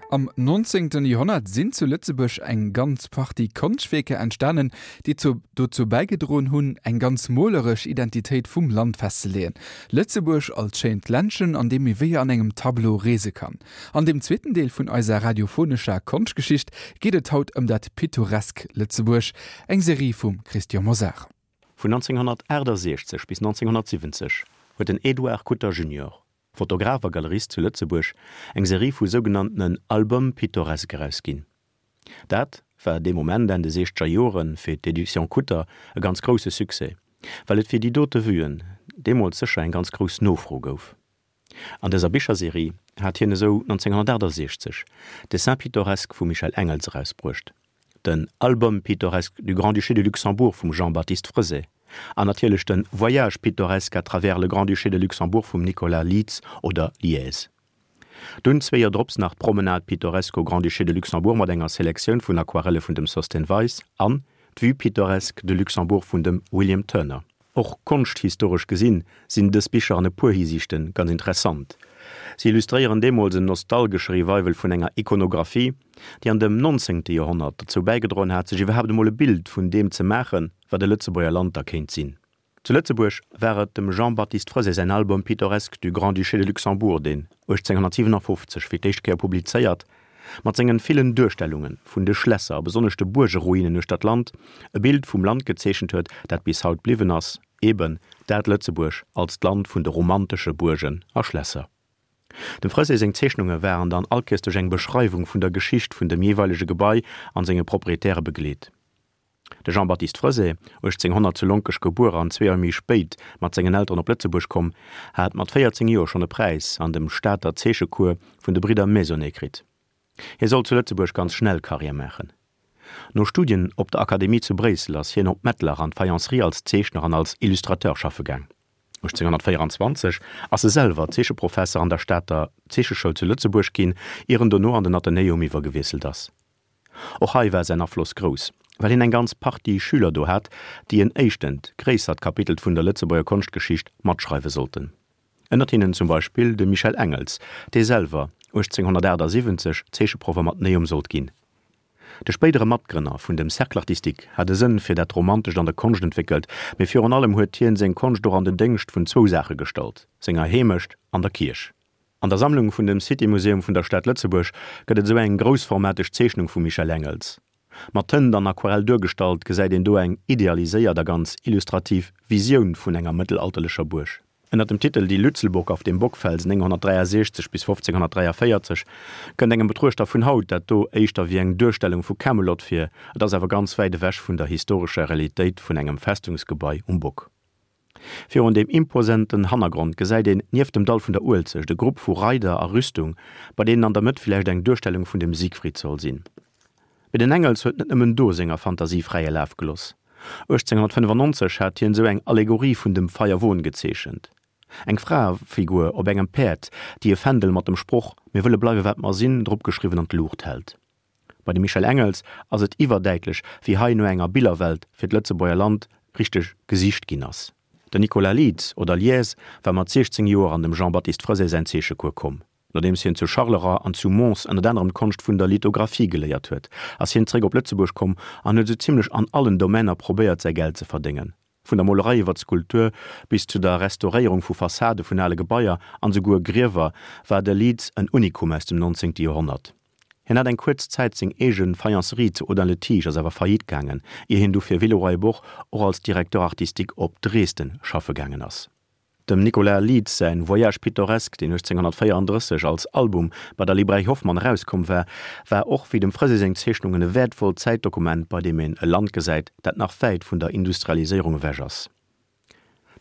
Am 19. Joerhonnert sinn zu Lëtzebuerg eng ganz Partie Konschtwierker entstanen, déi zu dozou bäigedroen hunn, eng ganz moleresch Identitéit vum Land festzeleeën. Lëtzebuerg als schéint Ländchen, an deem ee wéi an engem Tableau reese kann. An dem zweeten Deel vun eiser radiophonescher Konschtgeschicht geet et haut ëm dat pittoresk Lëtzebuerg, eng Serie vum Christian Mosar. Vun 1968 bis 1970 huet den Edouard Kutter junior, Fotograf a Galerist zu Lëtzebuerg, eng Serie vu sougenanntenen Albums pittoresques erausginn. Dat war dee Moment, Enn de siechzeger Joren, fir d'Editions Kutter e ganz grousse Succès, well et fir déi dote Vuen deemools sécher eng ganz grouss Nofro gouf. An dëser Bicherserie hat hien esou 1968 Dessins pittoresques vum Michel Engels erausbruecht, den Album pittoresque du Grand-Duché de Luxembourg vum Jean-Baptiste Freset an natierlech de Voyage pittoresque à travers le Grand-Duché de Luxembourg vum Nicolas Lietz oder Lièze. Dunn zwee Joer drops nach d'Promenade pittoresque au Grand-Duché de Luxembourg mat enger Selektioun vun Aquarelle vun dem Sosthène Weis an d'Vue pittoresque de Luxembourg vun dem William Turner. Och konschthistoresch gesinn, sinn dës Bicher an e puer Hisiichte ganz interessant. Si illustréieren deemools en nostalgesche Revival vun enger Ikonographie, déi an dem nonzéngte Joerhonnert derzou bäigedroen hat, sech iwwerhaapt emol e Bild vun deem ze maachen, wat e Lëtzebuerger Land da kéint sinn. Zu Lëtzebuerg war et dem Jean-Baptiste Freset säin Album pittoresque du Grand-Duché de Luxembourg, deen 1857 fir d'éischt Kéier publizéiert Mat sengen villen Duerstellungen vun de Schlässer a besonnesch de Buergeruinen uechter d'Land e Bild vum Land gezeechent huet, dat bis haut bliwwen ass, eben dat Lëtzebuerg als d'Land vun de romantesche Buergen a Schlässer. Dem Freset seng Zeechnunge waren dann allkéiers duerch eng Beschreiwung vun der Geschicht vun dem jeeweilege Gebai an senge Proprietäre begleet. De Jean-Baptiste Freset, 1800 zu Lonkech gebuer an zwee Joer méi spéit mat sengen Elteren op Lëtzebuerg komm, hat mat 14 Joer schonn e Präis an dem Stater Zeechecours vun de Bridder Maisonnet kritt. Hie sollt zu Lëtzebuerg ganz schnell Karriär maachen. No Studien op der Akademie zu Bréissel ass hien op Mettlach an d'Faïencerie als Zeechner an als Illustrateur schaffe gaang. 1824 ass e selwer Zeecheprofesser an der Stater Zeecheschoul zu Lëtzebuerg ginn, ier en dono an den Athenäum iwwergewiesselt ass. Och hei war säin Afloss grouss, well hien eng ganz Partie Schüler do hat, déi en éischtent gréissert Kapitel vun der Lëtzebuerger Konschtgeschicht matschreiwe sollten. Ënnert hinnen zum Beispill de Michel Engels, dee selwer 1878 Zeecheproff am Athenäum sollt ginn. De spéidere Matgrënner vun dem Cercle artistique hat e Sënn fir dat Romantescht an der Konscht entwéckelt, mee virun allem huet hien seng Konscht och an den Déngscht vun zwou Saache gestallt, senger Heemecht an der Kierch. An der Sammlung vun dem City Museum vun der Stad Lëtzebuerg gëtt et esou eng groussformateg Zeechnung vum Michel Engels. Mat Tënt an Aquarell duergestallt, gesäit een do eng idealiséiert a ganz illustrativ Visioun vun enger mëttelalterlecher Buerg. Ënner dem Titel Die Lützelburg auf dem Bockfelsen 963 bis 1543 kënnt engem Betruechter vun haut dat do éischter wéi eng Duerstellung vu Camelot vir, et ass awer ganz wäit ewech vun der historescher Realitéit vun engem Festungsgebai um Bock. Virun deem imposenten Hannergrond gesäit een nieft dem Dall vun der Uelzecht e Grupp vu Reider a Rüstung, bei deenen an der Mëtt villäicht eng Duerstellung vun dem Siegfried soll sinn. Mee den Engels huet net nëmmen do senger Fantasie fräie Laf geloss. 1895 hat hien esou eng Allegorie vun dem Feierwon gezeechent, eng Fraefigur op engem Päerd, déi e Fändel mat dem Sproch Mir wëlle bleiwe wat mer sinn dropgeschriwwen an d'Luucht hält. Bei dem Michel Engels ass et iwwerdäitlech, wéi hei no enger Billerwelt fir d'Lëtzebuerger Land richteg gesicht ginn ass. Den Nicolas Lietz oder Lies war mat 16 Joer an dem Jean-Baptiste Freset säin Zeechecours komm. Nodeems hien zu Charleroi an zu Mons ënnert anerem d'Konscht vun der Lithographie geléiert huet, ass hien zeréck op Lëtzebuerg komm an huet esou zimmlech an allen Domainer probéiert säi Geld ze verdéngen, vun der Molerei iwwer d'Skulptur bis zu der Restauréierung vu Fassade vun ale Gebaier an esouguer Griewer war de Lietz en Unikum aus dem 19. Joerhonnert. Hien hat eng kuerz Zäit seng eege Faïencerie zu Audun-le-Tiche, ass awer faillite gaangen, ier hien du fir Villeroy-et-Boch och als Directeur artistique op Dresden schaffe gaangen ass. Dem Nicolas Lietz säin Voyage pittoresque, deen 1834 als Album bei der Librairie Hoffmann erauskomm war, war och wéi dem Freset seng Zeechnungen e wäertvollt Zäitdokument, bei deem een e Land gesäit, dat nach wäit vun der Industrialiséierung ewech ass.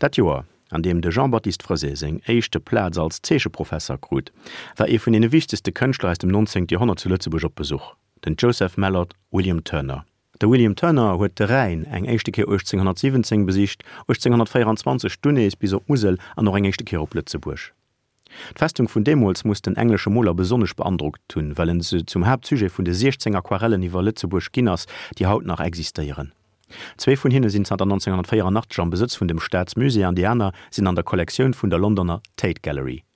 Dat Joer, an deem de Jean-Baptiste Freset seng éischte Plaz als Zeecheprofesser krut, war ee vun deene wichtegste Kënschtler aus dem 19. Joerhonnert zu Lëtzebuerg op Besuch, den Joseph Mallord William Turner. De William Turner huet de Rhäin eng éischte Kéier 1817 besicht, 1824 dunn nees bis op d'Musel an och eng éischte Kéier op Lëtzebuerg. D'Festung vun deemools muss den englesche Moler besonnesch beandrockt hunn, well en se zum Haaptsujet vun de 16 Aquarellen iwwer Lëtzebuerg ginn ass, déi haut nach existéieren. Zwee vun hinne sinn zanter 1984 am Besëtz vun dem Staatsmusée an déi aner sinn an der Kollektioun vun der Londoner Tate Gallery.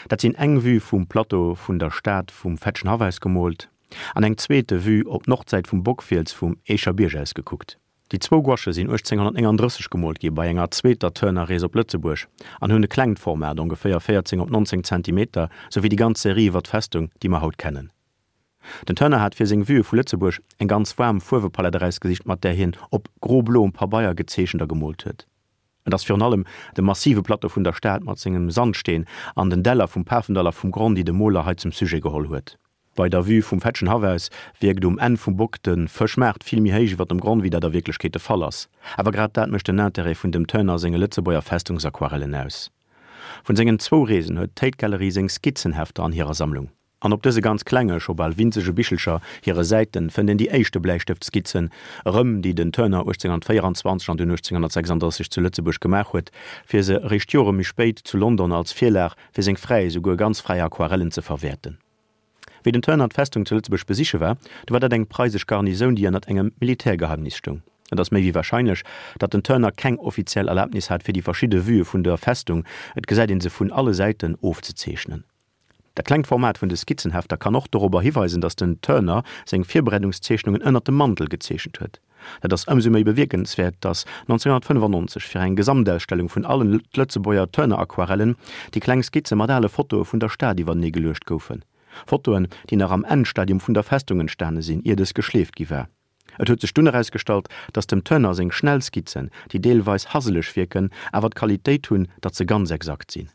Dat sinn eng Vue vum Plateau vun der Stad vum Fetschenhaff aus gemoolt an eng zweete Vue op d'Nordsäit vum Bockfiels vum Eecher Bierg aus gekuckt. Déi zwou Gouache sinn 1839 gemoolt gi bei enger zweeter Turner-Rees op Lëtzebuerg an hunn e klengt Format, ongeféier 14 op 19 Zentimeter, sou wéi déi ganz Serie iwwer d'Festung, déi mer haut kennen. Den Turner hat fir seng Vuë vu Lëtzebuerg eng ganz waarm Fuerwepalett erausgesicht, mat där hien op gro-bloem Pabeier gezeechent a gemoolt huet. Et ass virun allem de massive Plateau vun der Stad mat sengem Sandsteen an den Däller vum Pafendall a vum Gronn, déi de Moler hei zum Sujet geholl huet. Bei der Vue vum Fetschenhaff aus wierkt um Enn vum Bock de Fëschmaart vill méi héich iwwer dem Gronn, wéi dat a Wierklechkeet de Fall ass. Awer grad dat mécht den Intérêt vun dem Turner senge Lëtzebuerger Festungsaquarellen aus. Vun sengen zwou Reesen huet d'Tate Gallery seng Skizzenhefter an hirer Sammlung. An op dëse ganz klenge, scho bal winzege Bichelcher hire Säiten fënnt een déi éischte Bläistëftskizzen erëm, déi den Turner 1824 an dunn 1836 zu Lëtzebuerg gemaach huet, fir se eréischt Jore méi spéit zu London als Virlag fir seng fräi, esouguer ganz fräi Aquarellen ze verwäerten. Wéi den Turner d'Festung zu Lëtzebuerg besiche war, du war dat eng preisesch Garnisoun, déi ënnert engem Militärgeheimnis stoung. Et ass méi wéi warscheinlech, datt den Turner keng offiziell Erlabnis hat, fir déi verschidde Vuë vun der Festung, et gesäit een se vun alle Säiten, ofzezeechnen. Dat klengt Format vun de Skizzenhefter kann och dorobber hiweisen, datt den Turner seng Virbereedungszeechnungen ënnert dem Mantel gezeechent huet. Dat ass ëmsou méi bewierkenswäert, datt 1995 fir eng Gesamtausstellung vun allen Lëtzebuerger Turner-Aquarellen déi kleng Skizze mat ale Fotoe vun der Stad iwwertenee geluecht goufen. Fotoen, déi nach am Endstadium vun der Festung entstane sinn, ier dës geschleeft gi war. Et huet sech dunn erausgestallt, datt dem Turner seng schnell Skizzen, déi deelweis haseleg wierken, awer d'Qualitéit hunn, datt se ganz exakt sinn.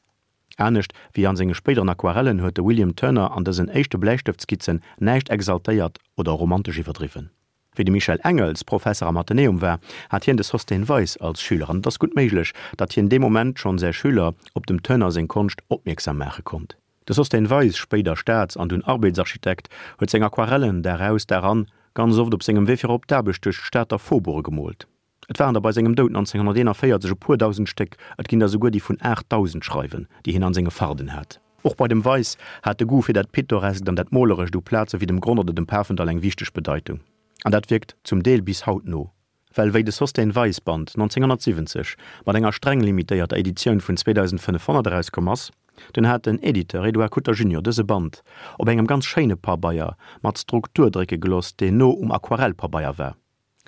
Anescht wéi an senge spéideren Aquarellen huet de William Turner an dësen éischte Bläistëftskizzen näischt exaltéiert oder romantesch iwwerdriwwen. Wéi de Michel Engels Professer am Athenäum war, hat hien de Sosthène Weis als Schüler an et ass gutt méiglech, datt hien dee Moment schonn säi Schüler op dem Turner seng Konscht opmierksam maache konnt. De Sosthène Weis, spéider Staats an dunn Arbeetsarchitekt, huet seng Aquarellen Dag aus, Dag an ganz oft op sengem Wee fir op d'Aarbecht duerch d'Stater Faubourge gemoolt. Et waren der bei sengem Doud 1941 e puer dausend Stéck, et ginn der souguer déi vun 8.000 schreiwen, déi hien an senge Farden hat. Och bei dem Weis hat de Goût fir dat Pittoreskt an dat Molerescht u Plaze wéi dem Gronn oder dem Pafendall eng wichteg Bedeitung. An dat wierkt zum Deel bis haut no. Well wéi de Sosthène Weis Band 1970 mat enger streng limitéierter Editioun vun 2.500 erauskomm ass, dunn hat den Editeur Edouard Kutter junior dëse Band op engem ganz schéine Pabeier mat Struktur drécke geloss, deen no um Aquarellpabeier war.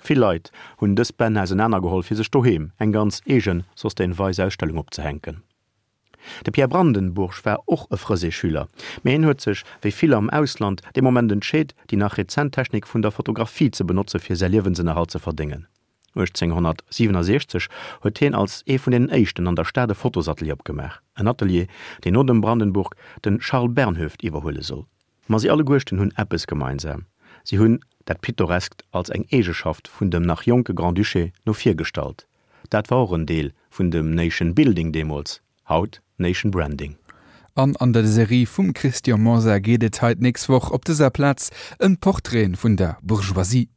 Vill Leit hunn dës Bänn ausenaner geholl fir sech doheem eng ganz eegen Sosthène Weis Ausstellung opzehänken. De Pierre Brandenburg war och e Frësé-Schüler, mee hien huet sech, wéi vill am Ausland, dee Moment entscheet, déi nach rezent Technik vun der Fotografie ze benotze fir säi Liewensënnerhalt ze verdéngen. 1867 huet hien als ee vun deenen éischten an der Stad e Fotosatelier opgemaach, en Atelier, deen no dem Brandenburg de Charles Bernhoeft iwwerhuele soll. Ma si alleguerten hunn eppes gemeinsam, si hunn dat Pittoreskt als eng Eegeschaft vun dem nach jonke Grand-Duché no vir gestallt. Dat war och en Deel vun dem Nation Building deemools, haut Nation Branding. An an der Serie vum Christian Mosar geet et hei d'nächst Woch op dëser Plaz ëm d'Portraiten vun der Bourgeoisie.